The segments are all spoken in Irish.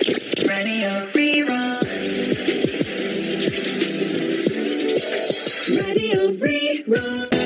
Radio Rí-Rá. Radio Rí-Rá.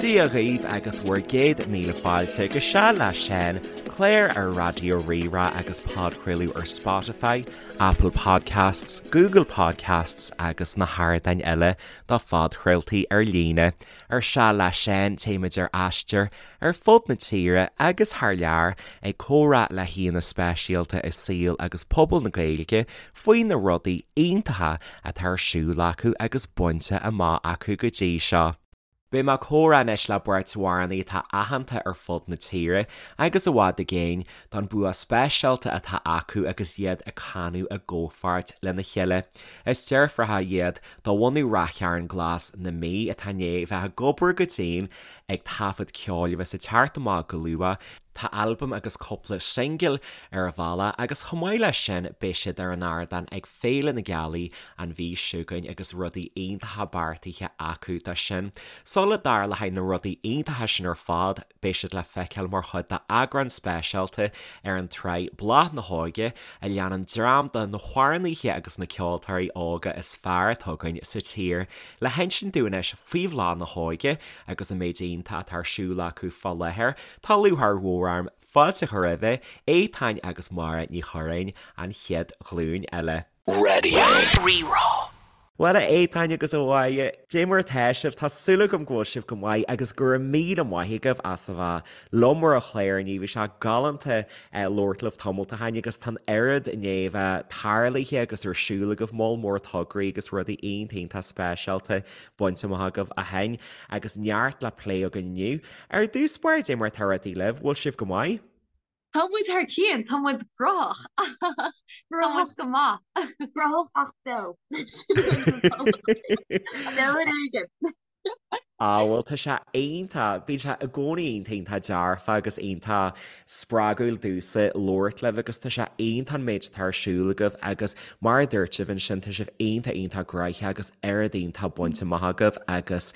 Dia dhaoibh agus bhur gcéad míle fáilte go Seal le Seán, clár ar Raidió Rí-Rá agus podchraoladh ar Spotify, Apple Podcasts, Google Podcasts agus na hardáin eile do phodchraoltaí ar líne. Ar Seal le Seán téimid ar aistear ar fud na tíre agus thar lear ag comhrá le haíonna speisialta i saol agus pobal na Gaeilge faoi na rudaí iontacha atá ar siúl acu agus bainte amach acu go dtí seo. Beidh mé ag comhrá anois le beirt amhránaí atá aitheanta ar fud na tíre agus i bhfad i gcéin don bua speisialta atá acu agus iad ag canadh i gcomhpháirt lena chéile. Is deirfiúracha iad de bhunadh Ráth Chairn Glas na Mí atá i ndiaidh bheith ag obair go dian ag taifead ceoil a bheas ag teacht amach go luath. Tá albam agus cúpla singil ar an bhealach agus chomh maith leis sin beidh siad ar an ardán ag Féile na Gealaí an mhí seo chugainn agus rudaí iontacha beartaithe acu dó sin. Sula dtarlóidh na rudaí iontacha sin ar fad beidh siad le feiceáil mar chuid d'eagrán speisialta ar an tsraith Bláth na hÓige a leanann dream de na hamhránaithe agus na ceoltóirí óga is fearr atá againn sa tír. Le hinsint dúinn anois faoi Bhláth na hÓige agus an méid iontach atá ar siúl acu fá láthair, Tá lúcháir mhór orm fáilte a chur roimhe, Étáin agus Máire Ní Churráin, an chéad ghlúin eile. Radio Rí-Rá. Bhuel, a Étáin agus a Mháire, dé mar atá sibh? Tá súil agam go bhfuil sibh go maith agus go raibh míle maith agaibh as a bheith liom ar an chlár inniu. Bhí sé galánta labhairt libh tamalt ó shin agus tá an oiread i ndiaidh a bheith tarlaithe agus ar siúl agaibh, moll mór tograí agus rudaí iontach iontach speisialta bainte amach agaibh ó shin agus neart le plé againn inniu. Ar dtús báire, dé mar atá rudaí libh, bhfuil sibh go maith? Tá muid thar cionn, tá muid gróthach, tá muid go maith. Gróthach ach beo. Beo ar éigean. Á, bhuel tá sé iontach, bíonn sé i gcónaí iontach iontach dearfa agus iontach spreagúil domhsa labhairt libh agus tá sé iontach an méid atá ar siúl agaibh agus mar a dúirt sibh ansin tá sibh iontach iontach gnoitheach agus oiread iontach bainte amach agaibh agus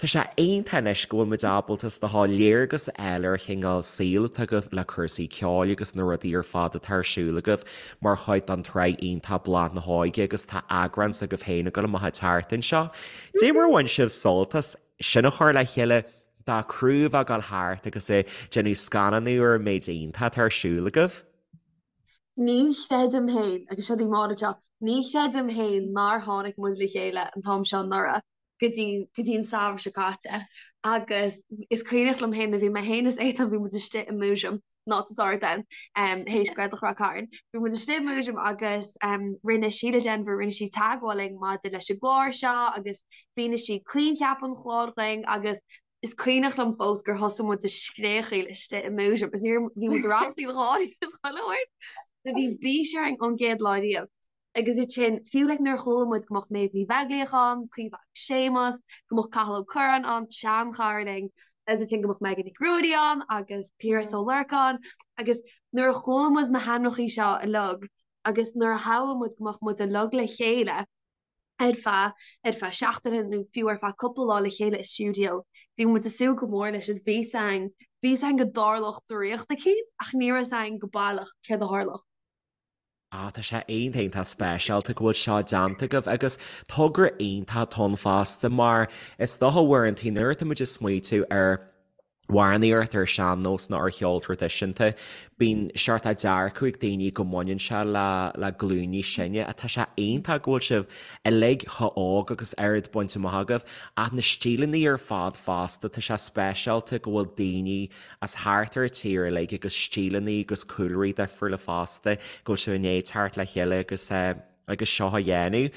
Tá sé iontach anois go bhfuil muid ábalta is dócha léargas a fháil ar an chineál saoil atá agaibh le cúrsaí ceoil agus na rudaí ar fad atá ar siúl agaibh mar chuid den tsraith iontach Bláth na hÓige agus tá eagrán s'agaibh féin ag dul amach an tseachtain seo. Dé mar a bhain sibh sult as sin a chur le chéile do chriú a bheith ag dul thart agus ag déanamh scannánú ar an méid iontach atá ar siúl agaibh? Ní chreidim féin, agus seo í Máire anseo, ní chreidim féin nár tháinig muid le chéile an t-am seo anuraidh. go dtí go dtí an samhradh seo caite agus is cuimhneach liom féin bhí mé féin is Étáin bhí muid istigh i múisiam not to start then um, théis Gaeltacht Ráth Cairn bhí muid istigh i múisiam agus um, rinne Síle Denvir rinne sí teagmháil linn maidir leis an gclár seo agus mhínigh sí coincheap an chláir dhúinn agus is cuimhneach liom fós gur thosaigh muid ag scréachaíl istigh i múisiam agus níor bhí muid ag rachtaíl gáirí bhí bís orainn ón gcéad lá riamh Agus ansin, fiú like nuair a chuala muid go mbeadh Méabh Ní Bheaglaoich ann, Caoimhe agus Séamus, go mbeadh Cathal Ó Curráin ann, seanchara linn, agus ansin go mbeadh Megan Nic Ruairí ann agus Piaras Ó Lorcáin agus nuair a chuala muid na hainmneacha seo uilig agus nuair a shamhlaigh muid go mbeadh muid uilig le chéile ar feadh ar feadh seachtaine nó fiú ar feadh cúpla lá le chéile i stiúideo, bhí muid ag súil go mór leis is bhí 's againn, bhí 's againn go dtarlódh draíocht eicínt ach ní raibh 's againn go baileach céard a tharlódh. Ah, tá sé iontach iontach speisialta go bhfuil seo déanta agaibh agus togra iontach atá ann fosta mar is dócha uaireanta nuair atá muid ag smaoitiú ar amhránaíocht ar sean-nós nó ar cheol traidisiúnta, bíonn seort dearcadh ag daoine go mbaineann sé le le glúin níos sine ach tá sé iontach go bhfuil sibh uilig chomh hóg agus oiread bainte amach agaibh ach na stíleanna ar fad fosta, tá sé speisialta go bhfuil daoine as thart ar an tír uilig agus stíleanna agus cúlraí difriúla fosta, go bhfuil sibh i ndiaidh teacht le chéile agus agus seo a dhéanamh.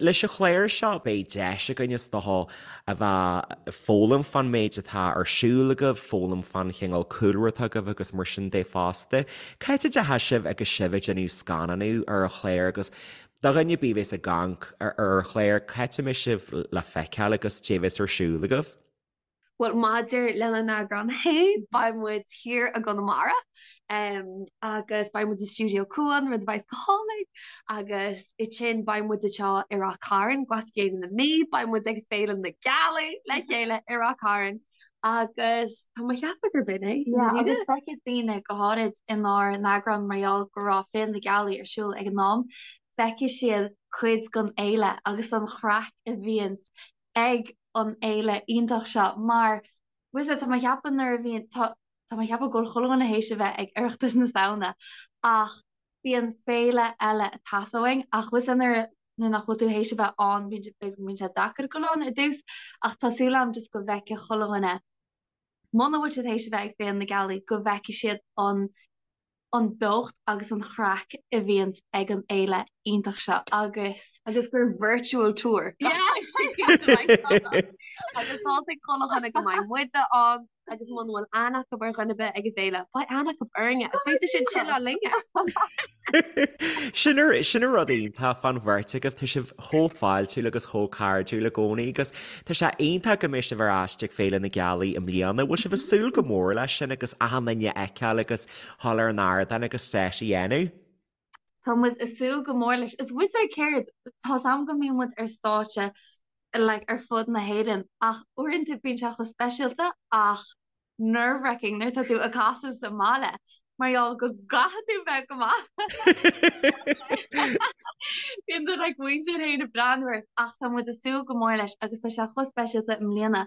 Leis an chlár seo beidh deis againn is dócha a bheith ag foghlaim fán méid atá ar siúl agaibh, foghlaim fán chineál cúlra atá agaibh agus mar sin de fosta. Cá háit a dteachaigh sibh agus sibh ag déanamh scannánú ar an chlár agus do dhuine ar bith a bheas ag amharc ar an chlár, cá háit a mbeidh sibh le feiceáil agus cad é a bheas ar siúl agaibh? Bhuel, maidir lenár n-eagrán féin, beidh muid thiar i gConamara agus beidh muid i stiúideo Cuan, rud a bheidh go hálainn, agus ansin beidh muid anseo i Ráth Cairn, Glas-Chéile na Mí, beidh muid ag Féile na Gealaí le chéile i Ráth Cairn agus tá mé ag ceapadh gurb in é. Yeah, agus feicfidh daoine go háirid inár n-eagrán mar gheall go raibh Féile na Gealaí ar siúl ag an am, feicfidh siad cuid den fhéile agus an chraic a bhíonns ag an fhéile iontach seo mar bhfuil 'fhios a'd tá mé ag ceapadh nuair a bhíonn tá tá mé ag ceapadh go bhfuil chuile dhuine théis a bheith ag Oireachtas na Samhna ach bíonn féile eile ag teastáil uainn ach bhfuil 'fhios a'd nuair nuair nach bhfuil tú théis a bheith ann bíonn b'fhéidir go mbíonn sé deacair dul ann i dtús ach tá súil agam just go bhfeicfidh chuile dhuine muna bhfuil siad théis a bheith ag Féile na Gealaí go bhfeicfidh siad an an beocht agus an chraic a bhíonns ag an fhéile iontach seo agus. Agus gur virtual tour. Agus tá ag chuile dhuine go mbeidh muide ann agus muna bhfuil aithne acu ar dhuine ar bith ag an bhféile, beidh aithne acu orainne agus beidh siad chilleáil linne. Sin an rud iontach fán bheirt agaibh, tá sibh chomh fáiltiúil agus chomh cairdiúil i gcónaí agus tá sé iontach go mbeidh sibh ar ais ag Féile na Gealaí i mbliana. Bhfuil sibh ag súil go mór leis sin agus achan duine a fheiceáil agus dhul ar an ardán agus set a dhéanamh. Tá muid ag súil go mór leis. Is bhfuil 'fhios a'd céard, tá's a'm go mbíonn muid ar stáitse like ar fud na hÉireann ach uaireanta bíonn sé chomh speisialta ach nerve-wracking nuair atá tú ag casadh sa mbaile mar gheall go gcaithfidh tú bheith go maith. Bíonn do like muintir féin ag breathnú ort ach tá muid ag súil go mór leis agus tá sé chomh speisialta i mbliana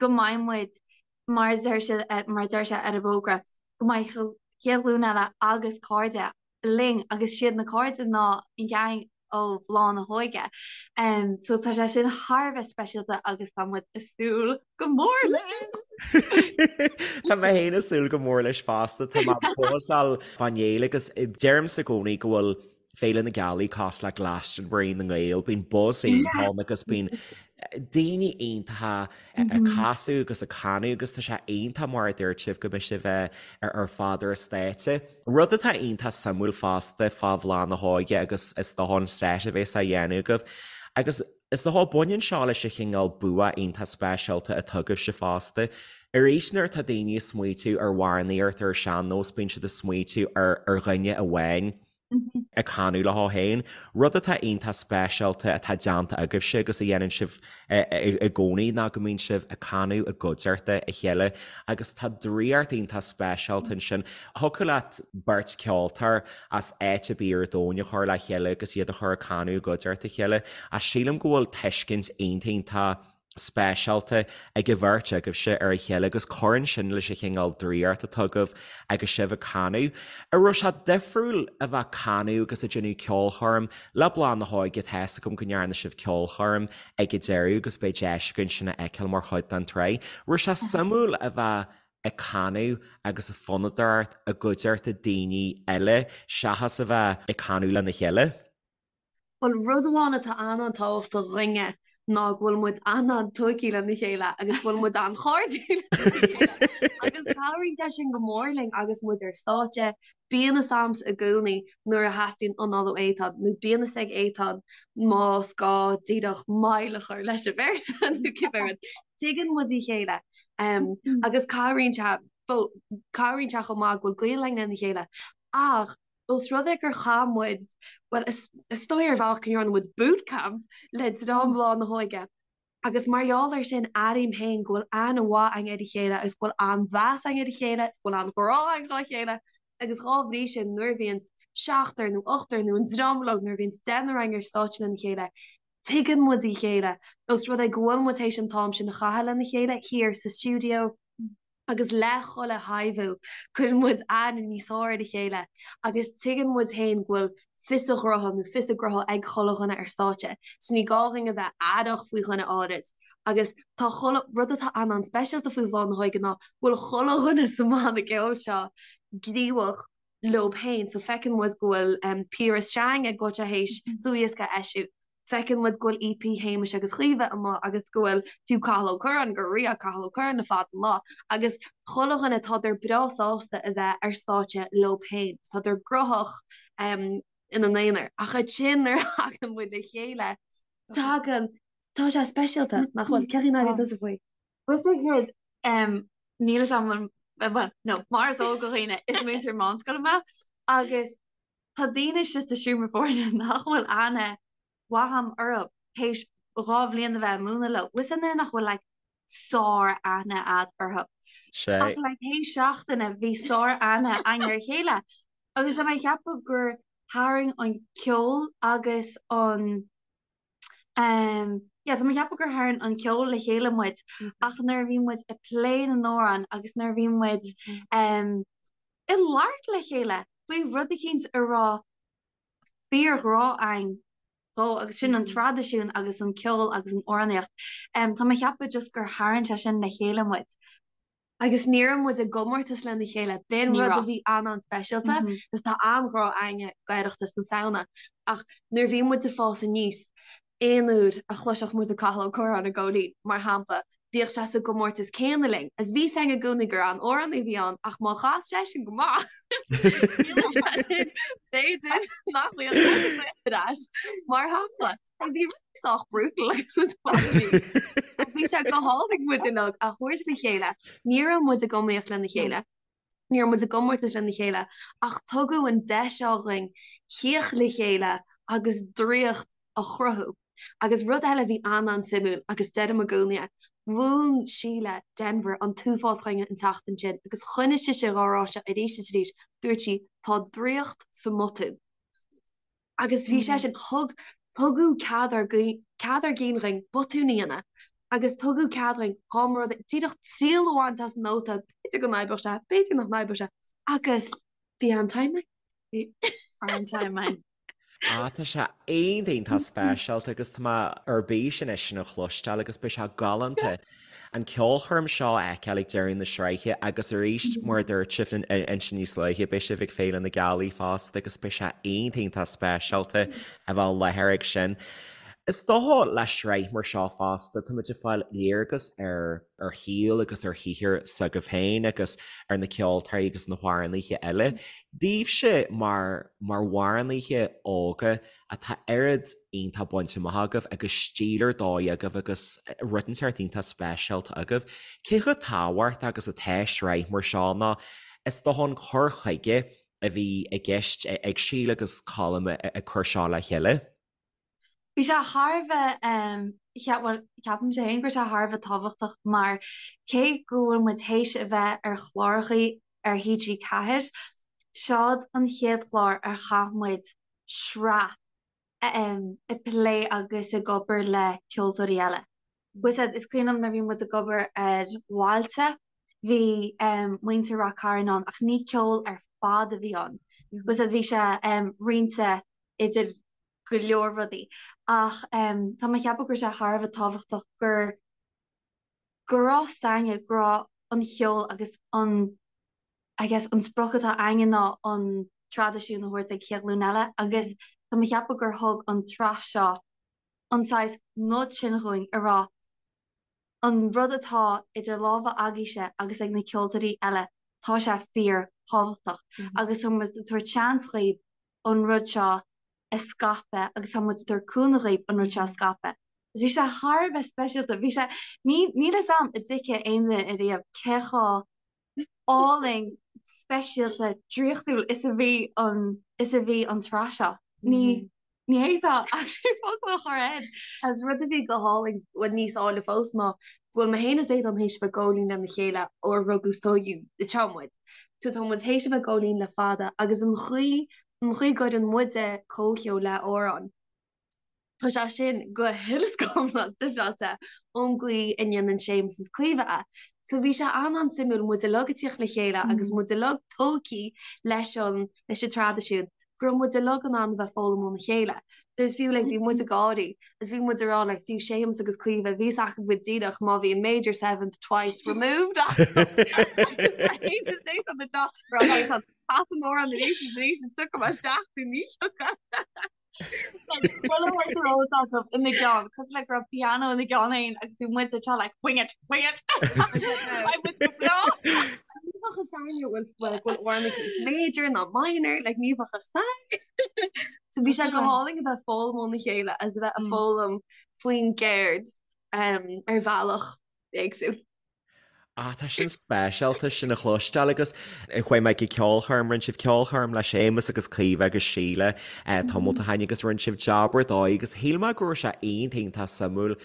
go mbeidh muid mar a deir siad, mar a deir sé ar an bhfógra, go mbeidh Chéad Ghlúin Eile agus cairde linn agus siad na cairde ná an geaing ó Bhláth na hÓige. So tá sé sin thar a bheith speisialta agus tá muid ag súil go mór leis! Tá mé féin ag súil go mór leis fosta, tá mé buzzáil fán fhéile agus deirimse i gcónaí go bhfuil Féile na Gealaí cosúil le Glastonbury na nGael, bíonn buzz iontach ann agus bíonn daoine iontacha ag casadh agus ag canadh agus tá sé iontach mar a dúirt sibh go mbeidh sibh ar fad ar an stáitse. Rud atá iontach suimiúil fosta fá Bhláth na hÓige agus is dócha an set a bheas á dhéanamh agaibh agus is dócha baineann seo leis an chineál bua iontach speisialta atá agaibhse fosta. Arís nuair atá daoine ag smaoitiú ar amhránaíocht ar an sean-nós bíonn siad ag smaoitiú ar dhuine amháin. ag canadh leo féin, rud atá iontach speisialta atá déanta agaibhse agus a dhéanann sibh i gcónaí ná go mbíonn sibh ag canadh i gcuideachta a chéile agus tá draíocht iontach speisialta ansin. Thiocfadh leat beirt ceoltóir as áit ar bith ar domhan a chur le chéile agus iad a chur ag canadh i gcuideachta a chéile ach sílim go bhfuil tuiscint iontach iontach speisialta ag an bheirt agaibhse ar a chéile agus cuireann sin leis an chineál draíocht atá agaibh agus sibh ag canadh. An raibh sé difriúil a bheith ag canadh agus ag déanamh ceolchoirm le Bláth na hÓige? Tá fhios agam go ndearna sibh ceolchoirm ag an deireadh agus beidh deis againn sin a fheiceáil mar chuid den tsraith. Raibh sé suimiúil a bheith ag canadh agus ag fonnadóireacht i gcuideachta daoine eile seachas a bheith ag canadh lena chéile? Bhuel, rud amháin atá an-an-tábhachtach dhúinne ná go bhfuil muid an-an-tuigthe lena chéile agus go bhfuil muid an-chairdiúil lena chéile. Agus cabhraíonn sé sin go mór linn agus muid ar stáitse. Bíonn fhios a'msa i gcónaí nuair a theastaíonn anáil ó Étáin nó bíonn fhios ag Étáin más gá díreach moill a chur leis an véarsa nó cibé rud. Tuigeann muid a chéile agus cabhraíonn sé, cabhraíonn sé chomh maith go bhfuil gaol againn lena chéile. Ach Ós rud é gur chaith muid, bhuel, is dóigh ar bhealach go ndearna muid bootcamp le dream Bhláth na hÓige agus mar gheall air sin airím féin go bhfuil aithne mhaith againn ar a chéile agus go bhfuil an-mheas againn ar a chéile agus go bhfuil an-ghrá againn dá chéile agus dhá bhrí sin nuair a bhíonns seachtar nó ochtar nó an dream uilig nuair a bhíonns deichniúr againn ar stáitse lena chéile tuigeann muid a chéile ós rud é go bhfuil muid théis an t-am sin a chaitheamh lena chéile thiar sa stiúideo. agus le chuile thaibhiú cuireann muid aithne níos fearr ar a chéile agus tuigeann muid féin go bhfuil fios a ghnótha nó fios a gnótha ag chuile dhuine ar stáitse so ní gá dhúinn a bheith aireach faoi dhuine áirid agus tá chuile rud atá an-an-speisialta faoi Bhláth na hÓige ná go bhfuil chuile dhuine sa mbanna ceoil seo gníomhach leo féin so feiceann muid go bhfuil Piaras Seang ag go bhfuil sé théis dlúthdhiosca a eisiú Feiceann muid go bhfuil EP Shéamais agus Chaoimhe amuigh agus go bhfuil fiú Cathal Ó Curráin, go ria Cathal Ó Curráin le fada an lá agus chuile dhuine tádar breá sásta a bheith ar stáitse leo féin, tádar gróthach ina n-aonar. Ach ansin nuair a thagann muid le chéile, tagann, tá sé speisialta, nach bhfuil? Cén chaoi a n-airíonn tusa faoi? Bhuel, is dóigh. Níl a fhios agam bhuel, no, mar is eol do dhaoine, is múinteoir meánscoile mé agus tá daoine istigh sa seomra foirne nach bhfuil aithne mhaith agam orthu théis 2 bhliain a bheith ag múineadh leo. Bhfuil a fhios agat nuair nach bhfuil like sár-aithne a'd orthu. Ach like théis seachtaine bhí sár-aithne againn ar a chéile agus tá mé ag ceapadh gur tharraing an ceol agus an Um, yeah, tá mé ag ceapadh gur tharraing an ceol le chéile muid ach nuair a bhí muid ag plé na n-amhrán agus nuair a bhí muid um, ag labhairt le chéile faoi rud eicínt a raibh fíorghrá againn dó agus sin an traidisiún agus an ceol agus an amhránaíocht. Um, tá mé ag ceapadh just gur tharraing sé sin le chéile muid. Agus ní raibh muid i gcomórtas lena chéile, b'in rud a bhí an-an-speisialta agus tá an-ghrá againne d'Oireachtas na Samhna. Ach nuair a bhí muid ag fás aníos, aon uair a chloisfeadh muid Cathal Ó Curráin ag Góilín, mar shampla, bhíodh sé sa gcomórtas céanna linn. Agus bhí 's againn i gcónaí gur an-amhránaí a bhí ann ach má chas seisean go maith, b'fhéidir nach mbeadh muid ar ais, mar shampla. Bhí rudaí sách brutal agus muid fós Bhí sé go hálainn muid uilig a thabhairt le chéile. Ní raibh muid ag iomaíocht lena chéile. Ní raibh muid i gcomórtas lena chéile ach tugadh an deis seo dhúinn theacht le chéile agus draíocht a chruthú. Agus rud eile a bhí an-an-suimiúil agus deirim i gcónaí é, mhúin Síle Denvir an t-uafás dhúinn an tseachtain sin agus choinnigh sise dhá rá seo arís is arís, dúirt sí, tá draíocht sa mbotún. Agus bhí sé sin, thug, tugadh cead ár cead ár gcinn dhúinn botún a dhéanamh agus tugadh cead dhúinn dhá mba rud é díreach triail a bhaint as an nóta, b'fhéidir go n-oibreodh sé, b'fhéidir nach n-oibreodh sé, agus bhí an-time againn. Bhí an-time againn. Ah, tá sé iontach iontach speisialta agus tá mé ar bís anois sin a chloisteáil agus beidh sé galánta an ceolchoirm seo a fheiceáil ag deireadh na sraithe agus arís mar a dúirt sibh ansin níos luaithe beidh sibh ag Féile na Gealaí fosta agus beidh sé iontach iontach speisialta a bheith i láthair ag sin. Is dócha le sraith mar seo fosta táimid ag fáil léargas ar ar shaol agus ar shaothar s'agaibh féin agus ar na ceoltóirí agus na hamhránaithe eile. Daoibhse mar mar amhránaithe óga atá oiread iontach bainte amach agaibh agus stíl ar dóigh agaibh agus rud inteacht iontach speisialta agaibh. Cé chomh tábhachtach agus atá sraith mar seo nó is dócha an cur chuige a bhí i gceist ag Síle agus Colm ag cur seo le chéile? Bhí sé thar a bheith, bhuel, ceapaimse féin go raibh sé thar a bheith tábhachtach mar cé go bhfuil muid théis a bheith ar chlárachaí ar TG4, seod an chéad chlár ar chaith muid sraith ag plé agus ag obair le ceoltóirí eile. Bhfuil a fhios agat, is cuimhin liom nuair a bhí muid ag obair ar Bhailte, bhí muintir Rath Cairn ann ach ní ceol ar fad a bhí ann. Bhfuil a fhios agat, bhí sé roinnte idir go leor rudaí ach tá mé ag ceapadh go raibh sé thar a bheith tábhachtach gur go raibh a fhios againne go raibh an cheol agus an I guess an sprioc atá againne ná an traidisiún a thabhairt ag chéad ghlúin eile agus tá mé ag ceapadh gur thug an tsraith seo an saghas nod sin dhúinn a rá an rud atá idir lámha agaibhse agus ag na ceoltóirí eile tá sé fíor thábhachtach agus tá muid ag tabhairt seans dhaoibh an rud seo a scaipeadh agus tá muid ag tabhairt cúnamh dhaoibh an rud seo a scaipeadh. Agus bhí sé thar a bheith speisialta, bhí sé, ní, níl fhios a'm an dtuigfidh aon duine ariamh cé chomh álainn, speisialta, draíochtúil is a bhí an, is a bhí an tsraith seo. Ní, ní fhéadfá actually focal a chur air. Agus rud a bhí go hálainn, bhuel níos áille fós ná go bhfuil mé féin is Aodán théis a bheith ag góilín lena chéile ó ar rugadh is tóigeadh anseo muid. So tá muid théis a bheith ag góilín le fada agus an chaoi an chaoi go gcuireann muide comhcheol le amhrán, tá sé sin go huile is go hiomlán difreáilte ón gcaoi a ndéanann Séamus is Caoimhe é. So bhí sé an-an-suimiúil muid uilig ag tíocht le chéile agus muid uilig tógtha leis an leis an traidisiún, go raibh muid uilig in ann a bheith foghlaim óna chéile. So is fiú like bhí muid ag gáirí is bhí muid ag rá like fiú Séamus agus Caoimhe bhí fhios acu go díreach má bhí a major seventh twice removed Cas an amhrán arís is arís is tiocfaidh mé isteach nó ní thiocfaidh. Chuile rud a raibh acu ina gceann, cosúil le go raibh piano ina gceann féin agus bhí muid anseo like wing it, wing it! Beidh muid go breá! Ní bheadh fhios againn go bhfuil go bhfuil amhrán aici major ná minor, like ní bheadh fhios againn. So bhí sé go hálainn a bheith ag foghlaim óna chéile agus a bheith ag foghlaim faoin gceird um, ar bhealach éagsúil. Ah, tá sin speisialta sin a chloisteáil agus chuaigh mé go ceolchoirm, rinne sibh ceolchoirm le Séamus agus Caoimhe agus Síle tamall ó shin agus rinne sibh jab ar dóigh agus shíl mé go raibh sé iontach iontach suimiúil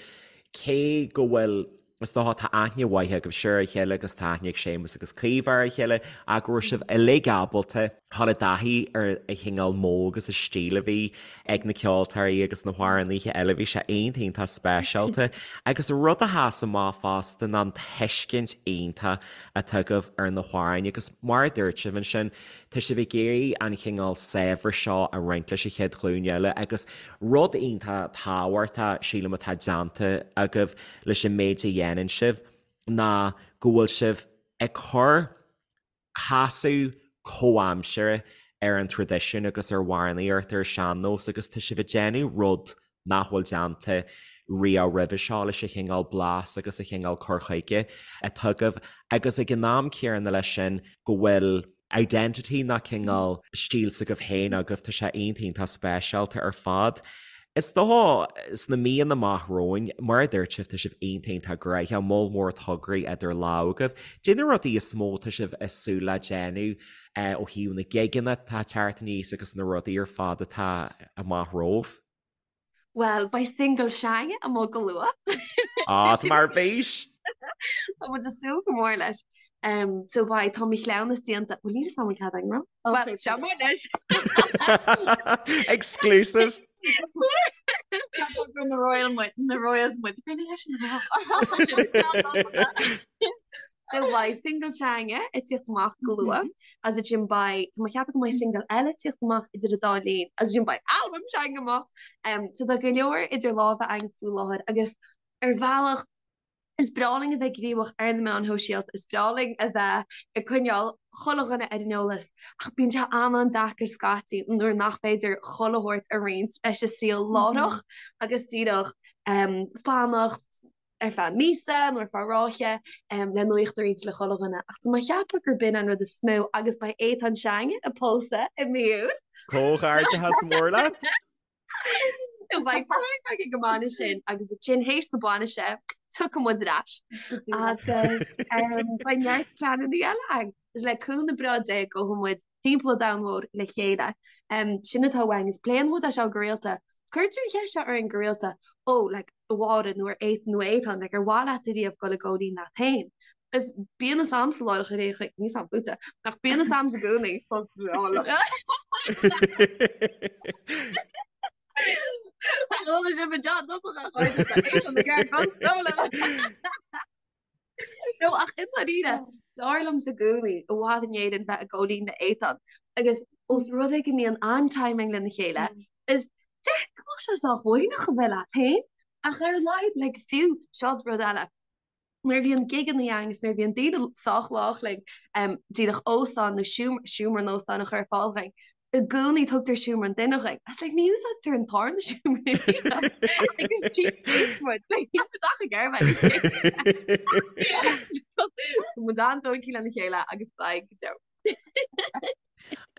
cé go bhfuil is dócha tá aithne mhaith agaibhse ar a chéile agus tá aithne ag Séamus agus Caoimhe ar a chéile ach go raibh sibh uilig ábalta dhul i dtaithí ar an chineál modh agus an stíl a bhí ag na ceoltóirí agus na hamhránaithe eile. Bhí sé iontach iontach speisialta. Agus rud a sheas amach fosta ná an tuiscint iontach atá agaibh ar na hamhráin agus mar a dúirt sibh ansin, tá sibh ag iarraidh an chineál saibhreas seo a roinnt leis an chéad ghlúin eile agus rud iontach tábhachtach, sílim, atá déanta agaibh leis an méid a dhéanann sibh ná go bhfuil sibh ag cur casadh comhaimseartha ar an traidisiún agus ar amhránaíocht ar an sean-nós agus tá sibh ag déanamh rud nach bhfuil déanta riamh roimhe seo leis an chineál blas agus an chineál cur chuige atá agaibh agus ag an am céanna leis sin go bhfuil identity nó cineál stíl s'agaibh féin agaibh, tá sé iontach iontach speisialta ar fad. Is dócha sna míonna amach romhainn, mar a dúirt sibh, tá sibh iontach iontach gnoitheach, moll mór tograí idir lámha agaibh. Cad é na rudaí is mó atá sibh ag súil le déanamh ó thaobh na gigeanna atá ag teacht aníos agus na rudaí ar fad atá amach romhaibh? Bhuel, beidh single s'againne amuigh go luath. Á, tá mé ar bís! Tá muid ag súil go mór leis. So beidh, tá mo chleamhnas déanta, bhuel níl a fhios agam an cead agam a rá. Bhuel, seo mar leis. Exclusive! Gur na Royal muid, na Royals muid. So beidh single s'againne ag tíocht amach go luath, agus ansin beidh, tá mé ag ceapadh go mbeidh single eile ag tíocht amach idir an dá linn, agus ansin beidh albam s'againne amach. So tá go leor idir lámha againn faoi láthair agus ar bhealach is breá linn a bheith gníomhach ar na meáin shóisialta, is breá linn a bheith ag coinneáil chuile dhuine ar an eolas ach bíonn sé an-an-deacair scaití nuair nach féidir chuile shórt a roinnt leis an saol láithreach agus díreach fanacht ar feadh míosa nó ar feadh ráithe le nuaíocht a roinnt le chuile dhuine ach tá mé ag ceapadh gurb in an rud is mó agus beidh Étáin s'againne ag pósadh i mí Iúil. Comhghairdeachas mór leat! Beidh time againn go mbainfidh sin agus ansin théis na bainise tiocfaidh muid ar ais agus beidh neart pleananna eile againn. Is le cúnamh breá Dé gabhfaidh muid timpeall an domhain mhóir le chéile. Sin atá uainn agus pléann muid é seo go rialta. Cuirtear an cheist seo orainn go rialta, ó, like, a Mháire nó ar Étáin nó Étáin, like, ar mhaith leat ariamh dul i gcónaí leat féin? Is bíonn fhios a'msa láithreach ar aon chaoi, níl fhios a'm fútsa, ach bíonn fhios a'msa i gcónaí. Chuala sibh an John Dubach a chairde, tá Étáin ag iarraidh dul solo. No, ach i ndáiríre, b'fhearr liomsa i gcónaí i bhfad in Éirinn bheith i gcónaí le Étáin agus ós rud é go mbíonn an-timing lena chéile, is deacair go mbeadh sé sách uaigneach a bheith leat féin, ach ar a laghad, like, fiú, seo rud eile, nuair a bhíonn gigeanna againn agus nuair a bhíonn daoine sách lách linn, díreach óstán nó seomra in óstán a chur ar fáil dhúinn, i gcónaí tugtar seomra an duine dhuinn. It's like ní úsáidtear an tarna seomra Muid an-tógtha lena chéile agus beidh go deo.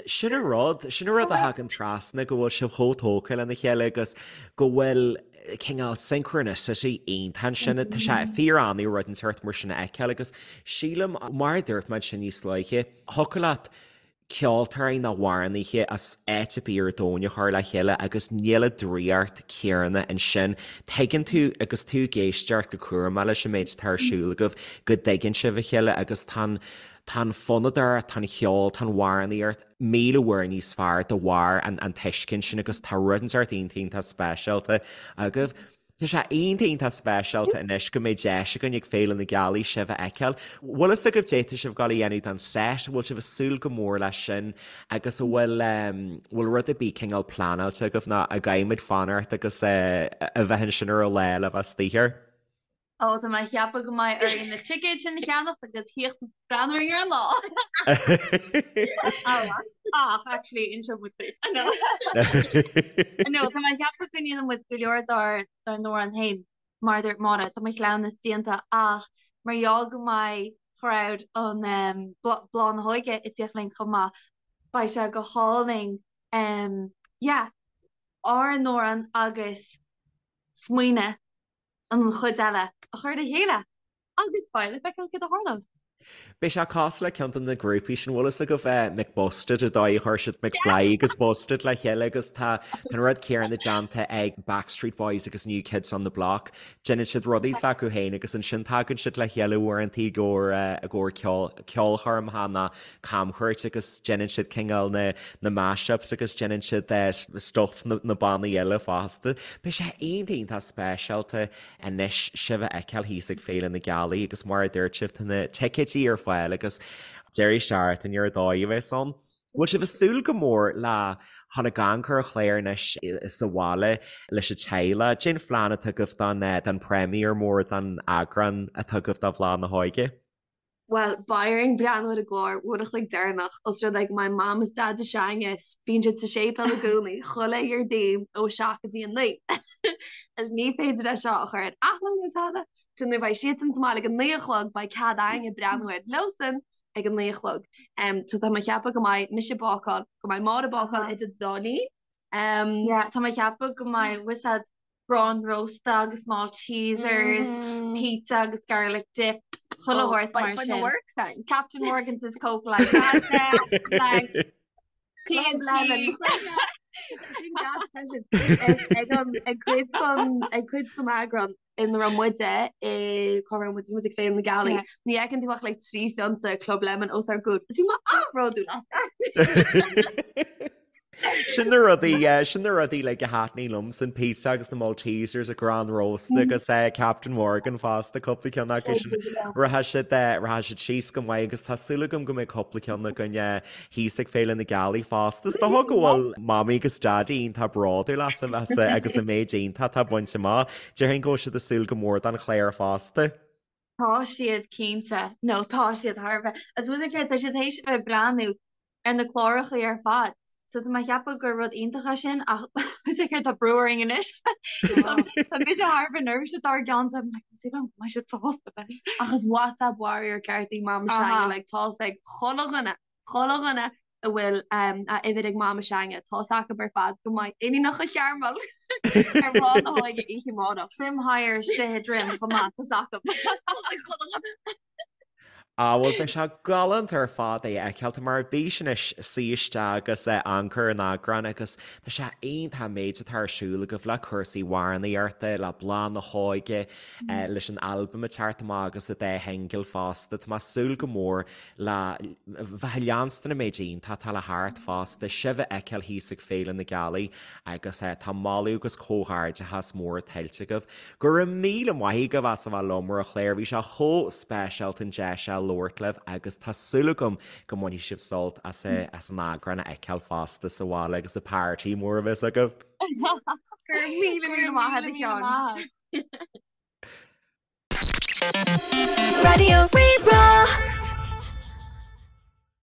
Sin an rud, sin an rud a thagann trasna go bhfuil sibh chomh tógtha lena chéile agus go bhfuil cineál synchronicity iontach ansin. Tá sé fíor-annamh rud inteacht mar sin a fheiceáil agus sílim, mar a dúirt mé ansin níos luaithe, thiocfadh leat ceoltóirí nó amhránaithe as áit ar bith ar domhan a chur le chéile agus níl an draíocht chéanna ansin. Tuigeann tú agus tú ag éisteacht go cúramach leis an méid atá ar siúl agaibh go dtuigeann sibh a chéile agus tá an tá an fonnadóireacht, tá an cheol, tá an amhránaíocht 1000 uair níos fearr de bharr an an tuiscint sin agus tá rud inteacht iontach iontach speisialta agaibh. Tá sé iontach iontach speisialta anois go mbeidh deis againn ag Féile na Gealaí sibh a fheiceáil. Bhfuil fhios agaibh cad é tá sibh ag gabháil a dhéanamh don set, an bhfuil sibh ag súil go mór leis sin agus an bhfuil bhfuil rud ar bith cineál pleanáilte agaibh nó an gcaithfidh muid fanacht agus a bheith ansin ar an lá le bheith istigh air? Ó, tá mé ag ceapadh go mbeidh orainn na ticéid sin a cheannacht agus theacht is breathnú orainn ar an lá. Ach, actually, inseoidh muid duit. No. No, tá mé ag ceapadh go ndéanann muid go leor dár dár n-amhráin féin, mar a dúirt Máire, tá mo chleamhnas déanta ach mar gheall go mbeidh crowd an um, Bláth na hÓige ag tíocht linn chomh maith, beidh sé go hálainn um, yeah, ár n-amhrán agus smaoineamh an chuid eile a chur le chéile. Agus beidh le feiceáil céard a tharlós. Beidh sé cosúil le ceann de na grúpaí sin, bhfuil fhios agaibh McBusted, an dóigh a chuir siad McFly agus Busted le chéile agus tá an rud céanna déanta ag Backstreet Boys agus New Kids on the Block. Déanann siad rudaí s'acu féin agus ansin tagann siad le chéile uaireanta i gcomhair i gcomhair ceol ceolchoirmeacha nó camchuairt agus déanann siad cineál na na mashups agus déanann siad stuff na na bannaí eile fosta. Beidh sé iontach iontach speisialta anois sibh a fheiceáil thíos ag Féile na Gealaí agus mar a dúirt sibh tá na ticéidí ar fáil agus deireadh seachtaine ar dóigh a bheas ann. Bhfuil sibh ag súil go mór le dhul ag amharc ar an chlár anois sa bhaile leis an teaghlach? Cén phlean atá agaibh don don premiere mór don eagrán atá agaibh de Bhláth na hÓige? Bhuel, beidh orainn breathnú ar an gclár uair a chloig deireanach, os rud é go mbeidh Mam is Daid s'againne, bíonn siad sa séipéal i gcónaí, chuile Dhéardaoin ó 7 go dtí a 9. Agus ní féidir é seo a chur ar athló nó tada, so nuair a bheidh siadsan sa mbaile ag a 9 a chlog, beidh cead againne breathnú air leosan ag a 9 a chlog. So tá mé ag ceapadh go mbeidh mise ag bácáil, go mbeidh Máire ag bácáil idir an dá linn. Yeah, tá mé ag ceapadh go mbeidh, bhfuil fhios a'd, Arán rósta agus Maltesers, pizza agus garlic dip, chuile shórt mar sin. Captain Morgan's is Coke like that. Lemon. Ag cuid ag cuid den eagrán ina raibh muide i cá raibh muid muid ag Féile na Gealaí. Ní fheiceann tú ach like 3 phionta Club Lemon os ár gcomhair. Is bhí mé an-bhródúil as. Sin na rudaí, sin na rudaí like a thaitníonn liomsa an pizza agus na Maltesers, an t-arán rósta agus eh, Captain Morgan fosta, cúpla ceann acu sin. Rachaidh siad eh, rachaidh siad síos go maith agus tá súil agam go mbeidh cúpla ceann againn eh, thíos ag Féile na Gealaí fosta. Is dócha go bhfuil Mamaí agus Daidí iontach bródúil asaibh as agus an méid iontach atá bainte amach. Déarfainn go bhfuil siad ag súil go mór don chlár fosta. Tá siad cinnte, nó tá siad thar a bheith. Is bhfuil fhios a'd céard, tá siad théis a bheith ag breathnú ar na clárachaí ar fad. So tá mé ag ceapadh gur rud iontach é sin ach is é céard tá brú orainn anois. Tá mise thar a bheith neirbhíseach dár gcionn so I'm like, is go mbeidh siad sásta leis. Ach is WhatsApp warrior ceart í Mama s'againne, like tá's ag chuile dhuine, chuile dhuine a bhfuil um, a uimhir ag Mama s'againne, tá's acu ar fad go mbeidh Iníonacha Chearmail ar Bhláth na hÓige oíche amárach. Trim higher istigh i droim chomh maith, tá's acu. Tá's ag chuile dhuine. Á, bhuel, beidh sé galánta ar fad é a fheiceáil. Tá mé ar bís anois suí isteach agus amharc ar an eagrán agus tá sé iontach an méid atá ar siúl agaibh le cúrsaí amhránaíochta, le Bláth na hÓige, leis an albam ag teacht amach agus an dá shingil fosta. Tá mé ag súil go mór le bheith ag leanstan an méid iontach atá le theacht fosta, sibh a fheiceáil thíos ag Féile na Gealaí agus tá moladh agus comhghairdeachas mór tuillte agaibh. Go raibh míle maith agaibh as a bheith liom ar an chlár, bhí sé chomh speisialta an deis seo labhairt libh agus tá súil agam go mbainfidh sibh sult as as an eagrán a fheiceáil fosta sa bhaile agus an party mór a bheas agaibh. Go raibh míle míle maith agat a Sheáin. Raidió Rí-Rá.